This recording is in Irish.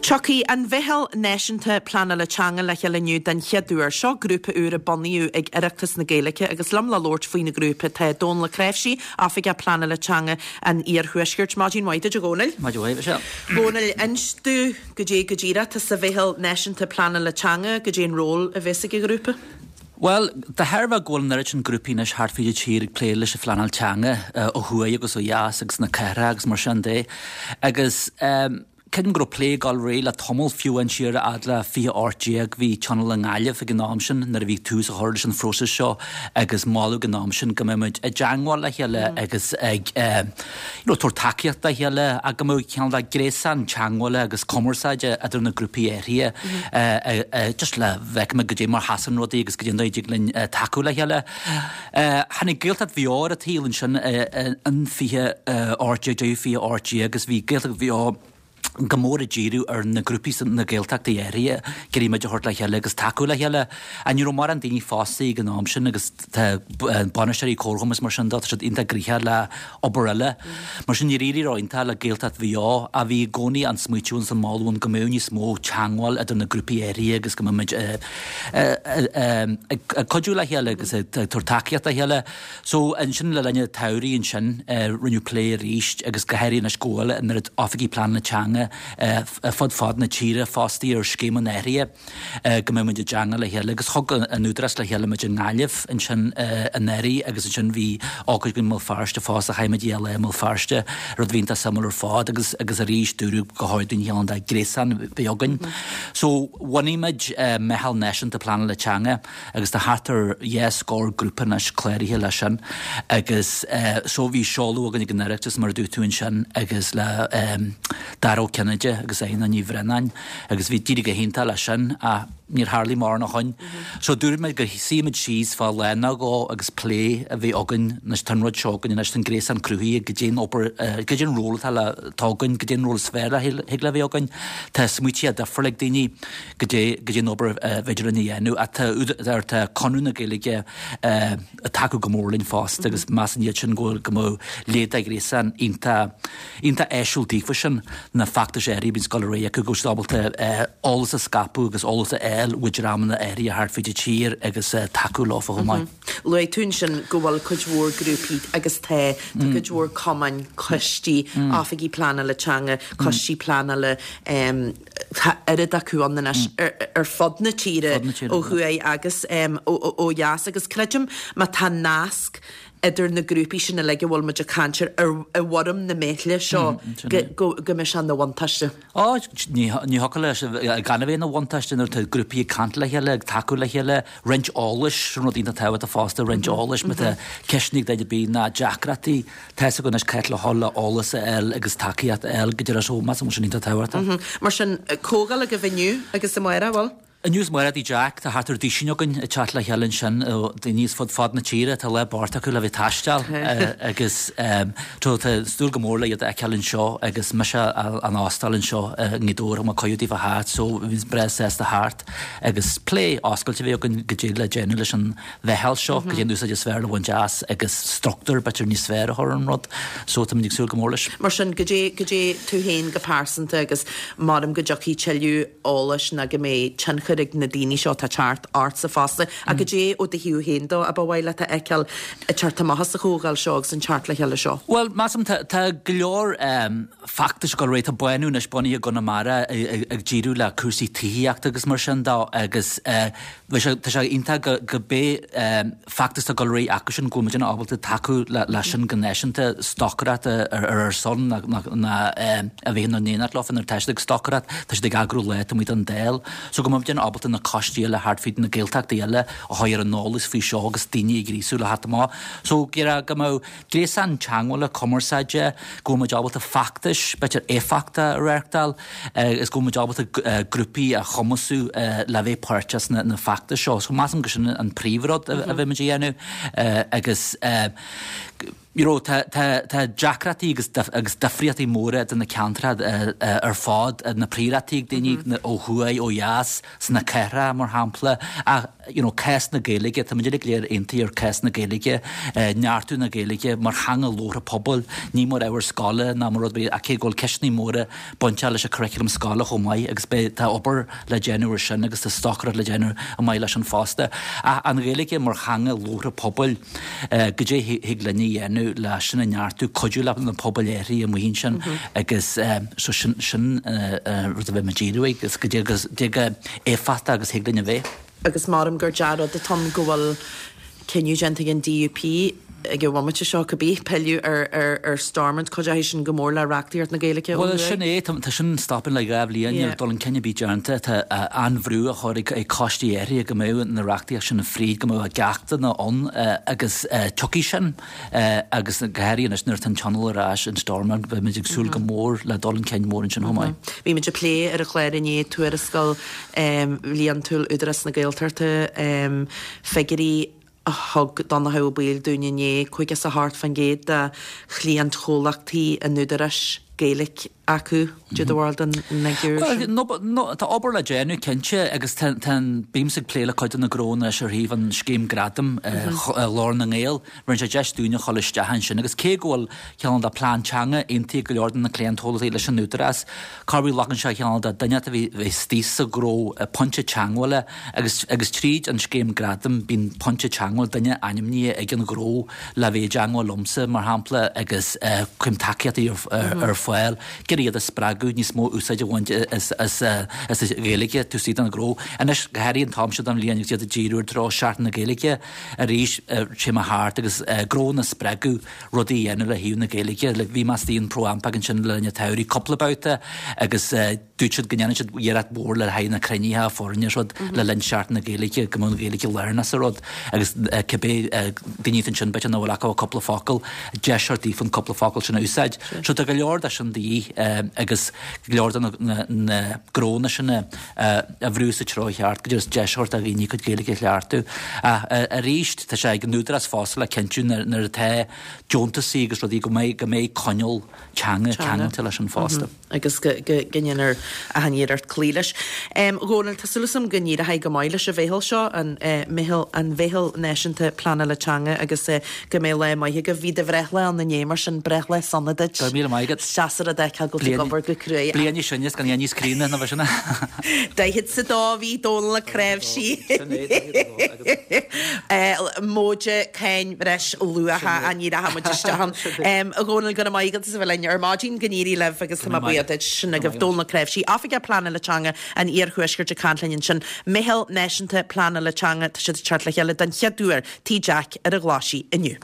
Tiocfaidh an Mheitheal Náisiúnta Pleanála Teanga le chéile inniu den chéad uair. Seo grúpa úr a bunaíodh ag Oireachtas na Gaeilge agus liom le labhairt faoin ghrúpa tá Dónal Ó Cnáimhsí, Oifigeach Pleanála Teanga an Iarthuaiscirt. Maidin mhaith duit a Dhónaill. Maidin mhaith, Michelle. Dhónaill, inis domh goidé go díreach atá sa Mheitheal Náisiúnta Pleanála Teanga, goidé an ról a bheas ag an ghrúpa? Bhuel, de thairbhe go bhfuil an oiread sin grúpaí anois thart fríd an tír ag plé leis an phleanáil teanga, ó thuaidh agus ó dheas agus sna cathracha agus mar sin de, agus creidim go raibh plé ag dul ar aghaidh le tamall, fiú amháin siar a fhad le 2018, bhí tionól i nGaillimh ag an am sin nuair a bhí tús á chur leis an phróiseas seo agus moladh ag an am sin go mbeadh muid i dteangmháil le chéile agus ag you know tabhairt tacaíocht dá chéile ach go mbeadh cineál de gréasán teangmhála agus cumarsáide idir na grúpaí áirithe just le bhfeicfidh muid goidé mar sheasann rudaí agus goidé an dóigh a dtig linn tacú le chéile. Tháinig Gaeltacht Mhaigh Eo ar an tsaol ansin in 2018, deireadh 2018 agus bhí Gaeltacht Mhaigh Eo go mór ag díriú ar na grúpaí sna Gaeltachtaí áirithe, ag iarraidh muid a thabhairt le chéile agus tacú le chéile. Ach ní raibh mórán daoine fostaithe ag an am sin agus tá bainisteoirí comharchumainn is mar sin de, tá siad iontach gnoitheach le obair eile. Mar sin níor éirigh ró-iontach le Gaeltacht Mhaigh Eo ach bhí i gcónaí an smaoitiú agus an moladh ann go mbeadh níos mó teangmháil idir na grúpaí áirithe agus go mbeadh muid ag cuidiú le chéile agus ag tabhairt tacaíocht dá chéile. So, ansin le linn an tsamhraidh ansin, rinneadh plé arís agus go háirithe anois go bhfuil an oiread oifigigh pleanála teanga fud fad na tíre fostaithe ar scéim an athraithe, go mbeadh muid i dteangmháil le chéile agus thug an Údarás le chéile muid i nGaillimh ansin anuraidh agus ansin bhí ócáid againn i mBéal Feirste fosta, chaith muid lá i mBéal Feirste, rud a bhí iontach suimiúil ar fad agus agus arís dúradh gur chóir dúinn cineál de ghréasán a bheith againn. So, bhunaigh muid Meitheal Náisiúnta Pleanála Teanga agus tá thart ar dhá scór grúpa anois cláraithe leis sin agus so bhí seoladh againn ag an Oireachtas mar a dúirt tú ansin agus le Dara Ó Cinnéide agus Éanna Ní Bhraonáin agus bhí d'éirigh go hiontach leis sin ach níor tharlaigh mórán ó shoin. So dúirt muid go suífidh muid síos fá lá nó dhó agus plé a bheith againn anois tá an rud seo againn anois tá an gréasán cruthaithe goidé an obair goidé an ról atá le atá againn goidé an ról is fearr a thig le bheith againn tá smaoití difriúla ag daoine goidé goidé an obair a bhféidir linn a dhéanamh ach tá údar tá Conradh na Gaeilge ag tacú go mór linn fosta agus measann iad sin go bhfuil go mbeadh leithéid de ghréasán iontach iontach áisiúil daofa sin na feachtais áirithe a bhíonns ag dul ar aghaidh acu go bhfuil siad ábalta eolas a scaipeadh agus eolas a fháil ó dhreamanna áirithe thart fríd an tír agus tacú leofa chomh maith. Luaigh tú ansin go bhfuil cuid mhór grúpaí agus tá, tá cuid mhór cumainn, coistí, oifigí pleanála teanga, coistí pleanála, Tá oiread acu ann anois ar fud na tíre, ó thuaidh agus ó dheas, agus creidim má tá nasc idir na grúpaí sin uilig a bhfuil muid ag caint air i bhfoirm na meithle seo go mbeidh sé ina bhuntáiste. Ó, ní thiocfadh leis gan a bheith ina bhuntáiste nuair atá grúpaí ag caint le chéile, ag tacú le chéile, roinnt eolais, sin rud iontach tábhachtach fosta, roinnt eolais, má tá ceisteanna ag duine ar bith ná deacrachtaí, Tá a fhios acu anois cá háit le dhul le eolas a fháil agus tacaíocht a fháil go deireadh so measaim go bhfuil sin iontach tábhachtach. Mar sin, comhdháil agaibh inniu agus amárach, bhfuil? Inniu is amárach i dTigh Jack, tá thart ar duisín againn ag teacht le chéile ansin, daoine as fud fad na tíre, tá lá bocht acu le bheith ag taisteal agus tá súil go mór le iad a fheiceáil anseo agus mise á n-óstáil anseo i nGaoth Dobhair, thug mé cuireadh daofa theacht so bhí breá sásta theacht agus plé oscailte a bheith againn goidé le déanamh leis an mheitheal seo, goidé an úsáid is fearr le bhaint as agus struchtúr b'fhéidir níos fearr a chur ar an rud. So táimid ag súil go mór leis. Mar sin, goidé, goidé tú féin go pearsanta agus maram go dtiocfaidh tuilleadh eolais ná go mbeidh tionchar ag na daoine seo atá ag teacht ortsa fosta, ach goidé ó do thaobh féin de a ba mhaith leat a fheiceáil ag teacht amach as an chomhdháil seo agus an teacht le chéile seo? Bhuel, measaim tá, tá go leor feachtais ag dul ar aghaidh. Tá Bánú anois bunaithe i gConamara ag díriú le cúrsaí tithíochta agus mar sin de agus bhí sé, tá sé iontach go, go pé feachtas atá ag dul ar aghaidh acu sin go bhfuil muidne ábalta tacú le sin go náisiúnta, stocaireacht ar ar son ná, ná, ná a bheith in éineacht leofa nuair atá siad ag stocaireacht, tá siad ag eagrú lá taobh amuigh den Dáil. So go mbeidh muidne ábalta na coistí eile thart fríd na Gaeltachtaí eile a chur ar an eolas faoi seo agus daoine a ghríosú le theacht amach. So go mbeadh Gréasán teagmhála, cumarsáide, go bhfuil muid ábalta feachtais, b'fhéidir éifeachta a reáchtáil agus go bhfuil muid ábalta grúpaí a chumasú le bheith páirteach sna feachtais seo. So measaim go sin an príomhrud a bheidh muid a dhéanamh agus. You know, tá, tá, tá deacrachtaí agus, agus difríochtaí móra idir na ceantracha ar fad, na príorachtaí ag daoine ó thuaidh, ó dheas, sna cathracha, mar shampla, ach, you know, cás na Gaeilge, tá muid uilig go léir aontaithe ar cás na Gaeilge, neartú na Gaeilge mar theanga labhartha pobail, ní mar ábhar scoile ná mar rud ar bith, ach cé go bhfuil ceisteanna móra bainteach leis an curriculum scoile chomh maith agus beidh, tá obair le déanamh ar sin agus tá stocaireacht le déanamh chomh maith leis sin fosta. Ach an Ghaeilge mar theanga labhartha pobail, goidé thig linn a dhéanamh le sin a neartú, cuidiú le na pobail áirithe amuigh ansin agus so sin, sin rud a bheidh mé ag díriú air agus goidé chomh éifeachtach agus thig linn a bheith. Agus maram gur dea-rud atá ann go bhfuil cinneadh déanta ag an DUP ag an bhomaite seo, cibé, pilleadh ar Stormont. Cuideoidh sin go mór le reachtaíocht na Gaeilge ó Bhuel, sin é. Tá sin stoptha le 2 bhliain, níl dul chun cinn ar bith déanta. Tá an-bhrú á chur ag coistí áirithe go mbeadh na reachtaíocht sin fríd, go mbeadh a gceachtanna ann agus tiocfaidh sin agus go háirithe anois nuair atá an Tionól ar ais in Stormont, beimid ag súil go mór le dul chun cinn mór ansin chomh maith. Bhí muid ag plé ar an chlár inné tuarascáil bhliantúil Údarás na Gaeltachta, figiúirí a thug Donnchadh Ó Baoill dúinn inné, 58% de chliantchomhlachtaí an Údaráis Gaeilge acu. Cad é do bharúil den fhigiúr sin? Bhuel, tá obair le déanamh, cinnte, agus tá an, bímse ag plé le cuid de na gnónna anois ar thaobh an scéim gradaim Ghlór na nGael. Bheireann sé deis dúinn a dhul isteach ansin agus cé go bhfuil cineál de plean teanga aontaithe ag go leor de na cliantchomhlachtaí leis an Údarás, corruair glacann sé cineál de duine a bheith istigh sa ghnó, pointe teagmhála agus agus tríd an scéim gradaim bíonn pointe teagmhála, duine ainmnithe ag an ghnó le bheith i dteagmháil liomsa mar shampla agus cuirim tacaíochtaí ar fáil, ag iarraidh iad a spreagadh níos mó úsáid a bhaint as as as an Ghaeilge taobh istigh den ghnó. Anois go háirithe an t-am seo den bhliain agus iad ag díriú ar treo Seachtain na Gaeilge arís téim thart agus gnónna a spreagadh rudaí a dhéanamh le thaobh na Gaeilge. Like bhí mé istigh in ProAmpac ansin le linn an tsamhraidh cúpla babhta agus dúirt siad go ndéanann siad iarracht mhór le haghaidh na cruinnithe foirne is rud le linn Seachtain na Gaeilge go mbeadh an Ghaeilge lárnach sa rud agus cibé daoine atá ansin b'fhéidir nach bhfuil acu ach cúpla focal, deis a thabhairt daofa an cúpla focal sin a úsáid. So tá go leor de sin de dhíth agus go leor de na gnónna sin a a bhrú sa treo cheart, go dtí deis a thabhairt do dhaoine a gcuid Gaeilge a chleachtadh. Ach arís, tá sé ag an Údarás fosta le cinntiú nuair atá deontasaí agus rudaí go mbeidh go mbeidh coinníoll teanga ceangailte leis sin fosta. Agus go ndéanfar achan iarracht cloí leis. A Dhónaill, tá súil agam go n-éireoidh go maith leis an mheitheal seo, an meitheal, an Mheitheal Náisiúnta Pleanála Teanga agus go mbeidh lá maith agaibh. Bhí do bhreithlá ann inné, mar sin breithlá sona duit. Go raibh míle maith agat. Is deas an rud é go bhfuil tú ag obair go cruaidh. Bliain níos sine is gan é níos críonna ná bheith sin. Daichead 's a dó a bhí Dónal Mac Cnáimhsí. Sin é, 42 agus. Móide cáin bhreis luacha ní rachaidh muid isteach ann. A Dhónaill, go raibh maith agat as a bheith linn ar maidin, go n-éirí libh agus tá mé buíoch duit. Sin agaibh Dónal Mac Cnáimhsí, Oifigeach Pleanála Teanga an Iarthuaiscirt ag caint linn ansin. Meitheal Náisiúnta Pleanála Teanga, tá siad ag teacht le chéile den chéad uair Tigh Jack ar an Ghlaisigh inniu.